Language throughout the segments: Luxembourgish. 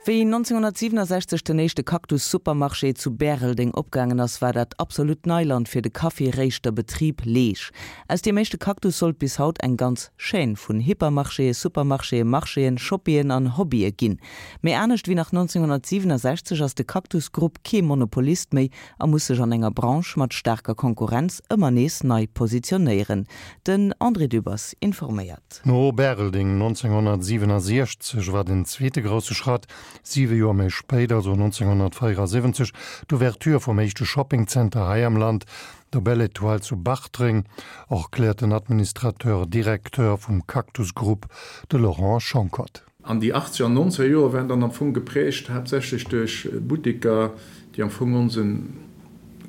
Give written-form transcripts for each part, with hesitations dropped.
Wéi 1967 den éischte Cactus-Supermarché zu Bäreldeng opgaangen ass, war dat absolut Neiland fir de Kaffi-Réischter-Betrib Leesch. Aus deem éischte Cactus sollt bis haut eng ganz Chaîne vun Hypermarchéen, Supermarchéen, Marchéen, Shoppien an Hobbye ginn. Mee anescht wéi nach 1967 ass de Cactus Grupp kee Monopolist méi a muss sech an enger Branche mat staarker Konkurrenz ëmmer nees nei positionéieren. Den André Dübbers informéiert. No Bäreldeng 1967 war den zweete grousse Schratt, siwe Joer méi spéit, also 1974, d'Ouverture vum éischte Shoppingzenter hei am Land, der Belle Etoile zu Bartreng, erkläert den Administrateur Directeur vum Cactus Group, de Laurent Schonckert. An déi achtzeger an nonzeger Joer waren dann am Fong geprägt haaptsächlech duerch Butteker, déi am Fong onsen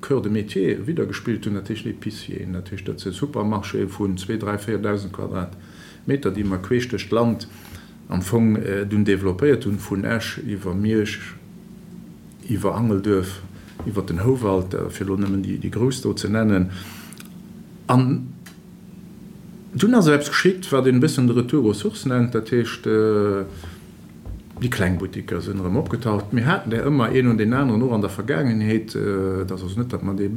Cœur de métier widdergespillt hunn, dat heescht Épicieren, dat heescht dat si Supermarchéë vun zwee, dräi, 4.000 Quadratmeter, déi mer queesch duerch d'Land am Fong dunn developpéiert hunn, vun Esch iwwer Miersch, iwwer Angelduerf, iwwer den Houwald, fir elo nëmmen déi grouss do ze nennen. An dunn ass eppes geschitt, wat een e bëssen de Retour aux sources nennt, dat heescht, déi kleng Buttiker sinn erëm opgetaucht. Mir haten där ëmmer een un deen aneren, och an der Vergaangenheet. Et ass also net, datt mer dee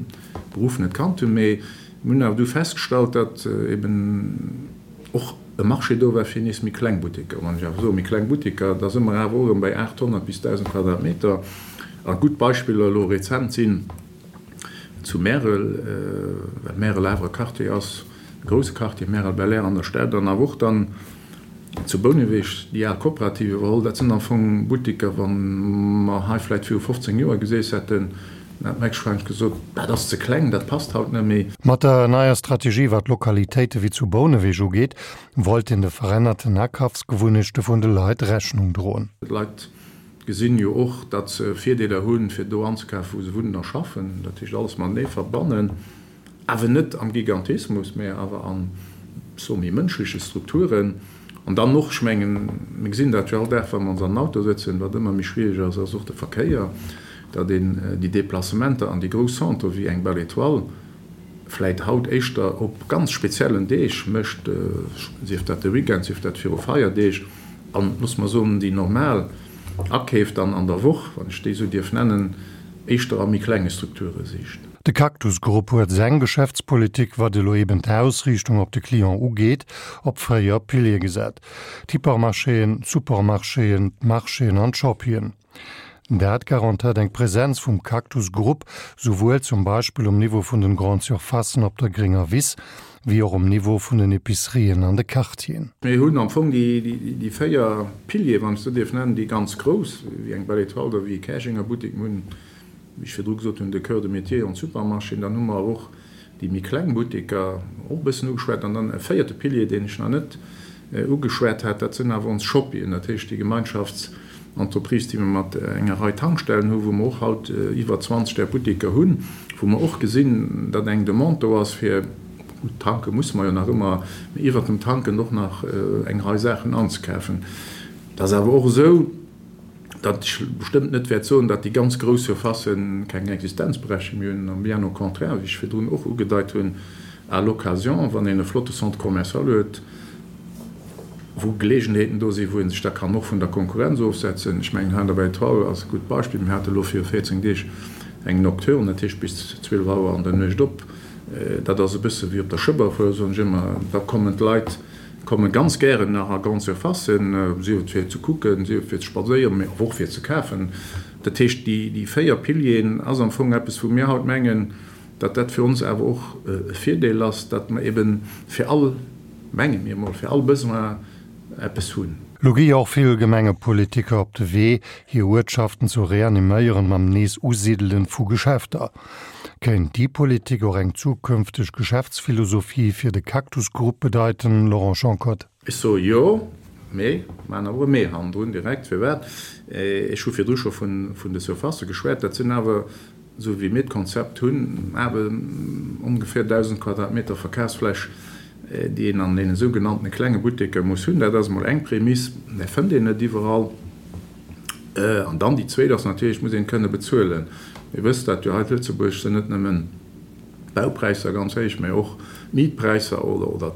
Beruff net kannt hunn, mee mir hunn awer du festgestallt, datt eben och e Marché do war fir nees méi kleng Butteker. Wann ech awer soe méi kleng Butteker, da si mer awer och erëm bei 800 bis 1.000 Quadratmeter. A gutt Beispiller elo rezent sinn zu Märel, well Märel awer e Quartier ass, e grousse Quartier, Märel-Belair an der Stad, an awer och dann zu Bouneweg déi al Kooperativ iwwerholl. Dat sinn am Fong Butteker, wa mer hei vläicht viru 15 Joer geseess hätten, dann hätt mer héchstwahrscheinlech gesot, dat ass ze kleng, dat passt haut net méi. Mat der neier Strategie, wat Lokalitéite wéi zu Bouneweg ugeet, wollt een de verännerten Akafsgewunnechte vun de Leit Rechnung droen. D'Leit gesinn jo och, datt se Virdeeler hunn, fir do anzekafen, wou se wunnen a schaffen. Dat heescht, alles matenee verbannen. Awer net am Gigantismus, mä awer an, soe méi mënschleche Strukturen. An dann och, ech mengen, mir gesinn dat jo all Dag, wa mer ons an den Auto sëtzen, wat ëmmer méi schwierig ass, ass och de Verkéier, datt een déi Déplacementer an déi grouss Centre wéi eng Belle Étoile vläit haut éischter op ganz speziellen Deeg mécht, sief dat de Weekend, sief dat viru Feierdeeg, an, loosse mer soen, déi normal Akeef dann an der Woch, wann ech déi esou dierf nennen, éischter a méi klenge Strukture sicht. De Cactus Group huet seng Geschäftspolitik, wat elo eben d'Ausriichtung op de Client ugeet, op 4 Piliere gesat, d'Hypermarchéen, d'Supermarchéen, d'Marchéen an d'Shoppien. Dat garantéiert eng Präsenz vum Cactus Group souwuel zum Beispill um Niveau vun den Grande Surfacen op der grénger Wiss, wéi och um Niveau vun den Epicerien an de Quartieren. Mir hunn am Fong déi 4 Piliere, wann ech se esou dierf nennen, déi ganz grouss, wéi eng Belle Etoile oder wéi e Käerjenger Buttek. Mir hunn, wéi ech virdru gesot hunn, de Cœur de métier an d'Supermarchéen. Dann hu mer awer och déi méi kleng Butteker, och e bëssen ugeschwat. An dann e véierte Pilier, deen ech nach net ugeschwat hat, dat sinn awer ons Shoppien, dat heescht déi Gemeinschaftsentreprise, déi mer mat enger Rei Tankstellen hunn, wou mer och haut iwwer 20 där Butteker hunn, wou mer och gesinn, datt eng Demande do ass fir, gutt tanke musse mer jo nach ëmmer, mee iwwert dem Tanken och nach eng Rei Saachen anzekafen. Et ass awer och esou, datt ech bestëmmt net wäert soen, datt déi ganz grouss Surfacen keng Existenzberechtigung méi hunn, bien au contraire, wéi ech virdrun och ugedeit hunn, à l'occasion, wann een e flotte Centre commercial huet, wou Geleegenheeten do sinn, wou ee sech da kann och vun der Konkurrenz ofsetzen. Ech mengen, hei an der Belle Etoile ass e gutt Beispill. Mir hate elo viru 14 Deeg eng Nocturne, dat heescht bis 12 Auer an der Nuecht op. Dat ass e bësse wéi op der Schëbberfuer, soen ech ëmmer. Da kommen d'Leit komme ganz gären nach a Grande Surfacen, sief et fir ze kucken, sief et fir ze spadséieren, mee och fir ze kafen. Dat heescht, déi 4 Pilieren ass am Fong eppes, wou mir haut mengen, datt dat fir ons awer och e Virdeel ass, datt mer eben fir all, menge mir emol, fir all Besoin eppes hunn. Lo gi jo och vill Gemengepolitiker op de Wee, hir Uertschaften zu reaniméieren mam nees Usidelen vu Geschäfter. Kéint déi Politik och eng zukünfteg Geschäftsphilosophie fir de Cactus Group bedeiten, Laurent Schonckert? Ech soe jo, mee maachen awer e Mee hannendrun direkt. Firwat? Ech hu virdru scho vun de Surfacë geschwat. Dat sinn awer, esou wéi mir d'Konzept hunn, awer ongeféier 1.000 Quadratmeter Verkafsfläch, déi een an deene sougenanntene klenge Butteker muss hunn. Dat ass emol eng Prämiss, mä fënnt een net iwwerall. An dann déi zweet ass natierlech, et muss een et kënne bezuelen. Dir wësst dat jo, hei zu Lëtzebuerg sinn net nëmmen d'Baupräisser ganz héich, mä och d'Mietpräisser oder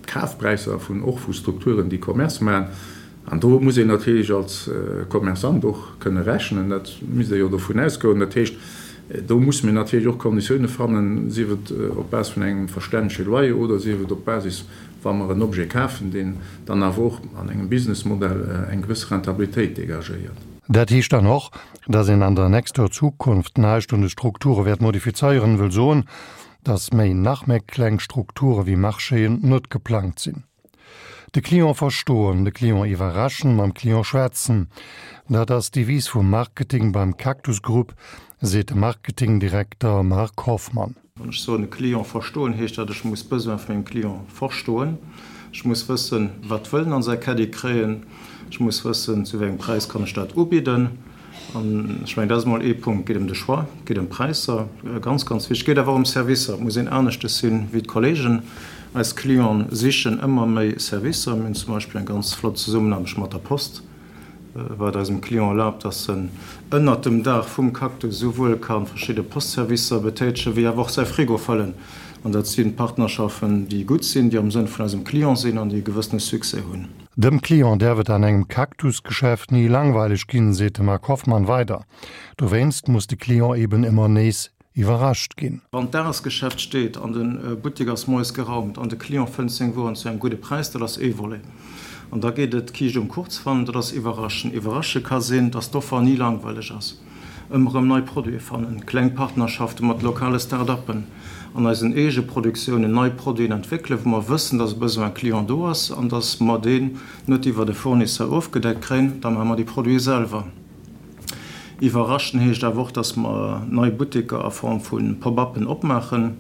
d'Kafpräisser vun och vu Strukturen, déi Commerce maachen. An do muss een natierlech als Commerçant och kënne rechnen, dat misst ee jo dovun ausgoen. Dat heescht, do musse mir natierlech och Konditioune fannen, sief et op Base vun engem verstännege Loyer oder sief et op Basis, wa mer en Objet kafen, deen dann awer och an engem Businessmodell eng gewësse Rentabilitéit dégagéiert. Dat heescht dann och, dass een an der nächster Zukunft näischt un de Strukture wäert modifizéieren, wëll soen, dass méi nach méi kleng Strukture wéi Marchéen net geplangt sinn. De Client verstoen, de Client iwwerraschen, mam Client schwätzen, dat ass d'Devise vum Marketing beim Cactus Group, seet de Marketingdirekter Marc Hoffmann. Wann ech soen, de Client verstoen, heescht dat, ech muss d'Besoin vun mengem Client verstoen. Ech muss wëssen, wat wëll en an säi Caddie kréien. Ech muss wëssen, zu wéi engem Präis kann ech dat ubidden. An ech mengen, dat ass emol ee Punkt. Et geet ëm de Choix, et geet ëm d'Präisser, ganz, ganz wichteg. Et geet awer och ëm Servicer. Et muss een aneschtes sinn wéi d'Kollegen. Eis Clienten sichen ëmmer méi Servicer. Mir hunn zum Beispill eng ganz flott Zesummenaarbecht mat der Post, wat eisem Client erlaabt, dass en ënnert dem Daach vum Cactus esouwuel ka verschidde Postservicer betätegen, wéi awer och säi Frigo fëllen. An dat si Partnerschaften, déi gutt sinn, déi am Sënn vun eisem Client sinn an déi e gewëssene Succès hunn. Dem Client däerf et an engem Cactus-Geschäft ni langweileg ginn, seet de Marc Hoffmann weider. Dowéinst muss de Client eben ëmmer nees iwwerrascht ginn. Wann d'Dagesgeschäft steet an de Buttek ass moies geraumt an de Client fënnt seng Wueren zu engem gudde Präis, dat ass ee Volet. An da geet et d'Kiischt um Kuch ze fannen, dat ass iwwerraschen. Iwwerrasche ka sinn, dass d'Offer ni langweileg ass. Ëmmer erëm nei Produite fannen, kleng Partnerschafte mat lokale Start-uppen, an eisen eege Produktiounen nei Produiten entwéckelen, wou mer wëssen, dass e Besoin client do ass an dass mer deen net iwwert e Fournisseur ofgedeckt kréien, da maache mer déi Produite selwer. Iwwerraschen heescht awer och, dass mer nei Butteker a Form vu Pop-uppen opmaachen.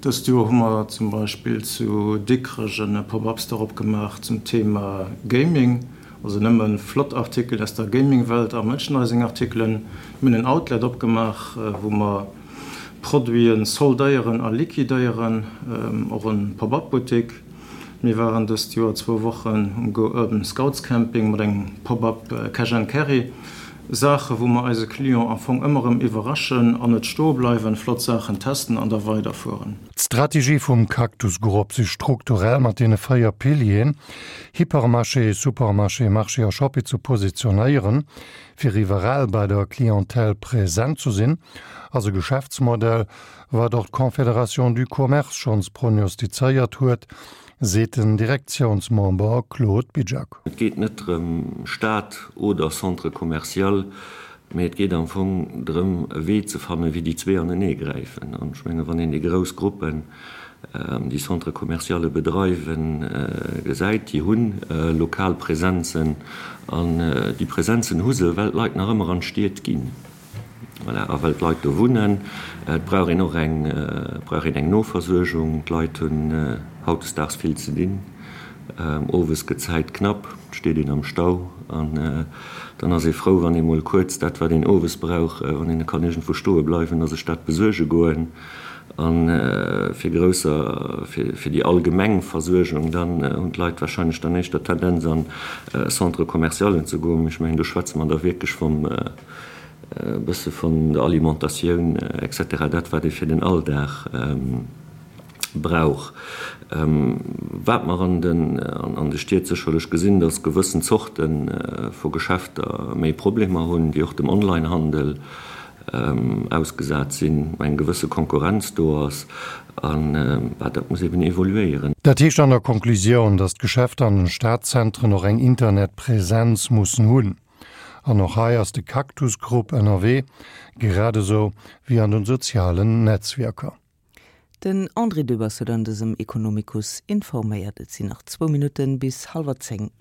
Dëst Joer hu mer zum Beispill zu Dikrech e Pop-up-Store opgemaach zum Thema Gaming. Also nëmmen flott Artikelen aus der Gaming-Welt a Merchandising-Artikelen. Mir hunn en Outlet opgemaach, wou mer Produiten soldéieren a liquidéieren, och en Pop-up-Buttik. Mir waren dëst Joer zwou Wochen um Go Urban Scouts Camping mat engem Pop-up Cash and Carry. Saache wou mer eise Client am Fong ëmmer erëm iwwerraschen an net stoe bleiwen, flott Saachen testen an da weiderfueren. D'Strategie vum Cactus Group, sech strukturell mat deene 4 Pilieren, Hypermarché, Supermarché, Marché a Shoppy ze positionéieren, fir iwwerall bei der Clientèle present zu sinn, ass e Geschäftsmodell, wat och d'Confédération du Commerce schonns prognostizéiert huet, seet den Direktiounsmember Claude Bizjak. Et geet net drëm, Stad oder Centre commercial, mee et geet am Fong drëm, e Wee ze fannen, wéi déi zwee anenee gräifen. An ech mengen, wann een déi grouss Gruppen, déi Centres commerciale bedreiwen, gesäit, déi hu lokal Presenzen. An déi Presenzen hu se, well d'Leit nach ëmmer an d'Stied ginn. Voilà, a well d'Leit do wunnen. Et brauch een och eng, brauch een eng Noversuergung. D'Leit hunn hautdesdaags vill ze dinn. Owes gëtt d'Zäit knapp, et steet een am Stau an dann ass ee frou, wann ee mol kuerz dat, wat een owes brauch, wann een kann iergendwou stoe bleiwen a sech dat besuerge goen. A fir grousser, fir déi allgemeng Versuergung, dann hunn d'Leit warscheinlech dann éischter d'Tendenz an Centre-commercialen ze goen. Mee ech mengen, do schwätze mer da wierklech vum e bësse vun der Alimentatioun et cetera, dat wat ee fir den Alldag brauch. Wat mer an den an de Stied sécherlech gesinn, datt gewëssen Zorte vu Geschäfter méi Problemer hunn, déi och dem Onlinehandel ausgesat sinn, eng gewësse Konkurrenz do ass an dat muss eben evoluéieren. Dat heescht an der Konklusioun, datt d'Geschäfter an den Stadzentren och eng Internetpräsenz mussen hunn. An och hei ass de Cactus Group ënnerwee, grad esou wéi an den sozialen Netzwierker. Den André Dübbers huet an dësem Ekonomikus informéiert. Et sinn nach zwou Minutten bis hallwer 10.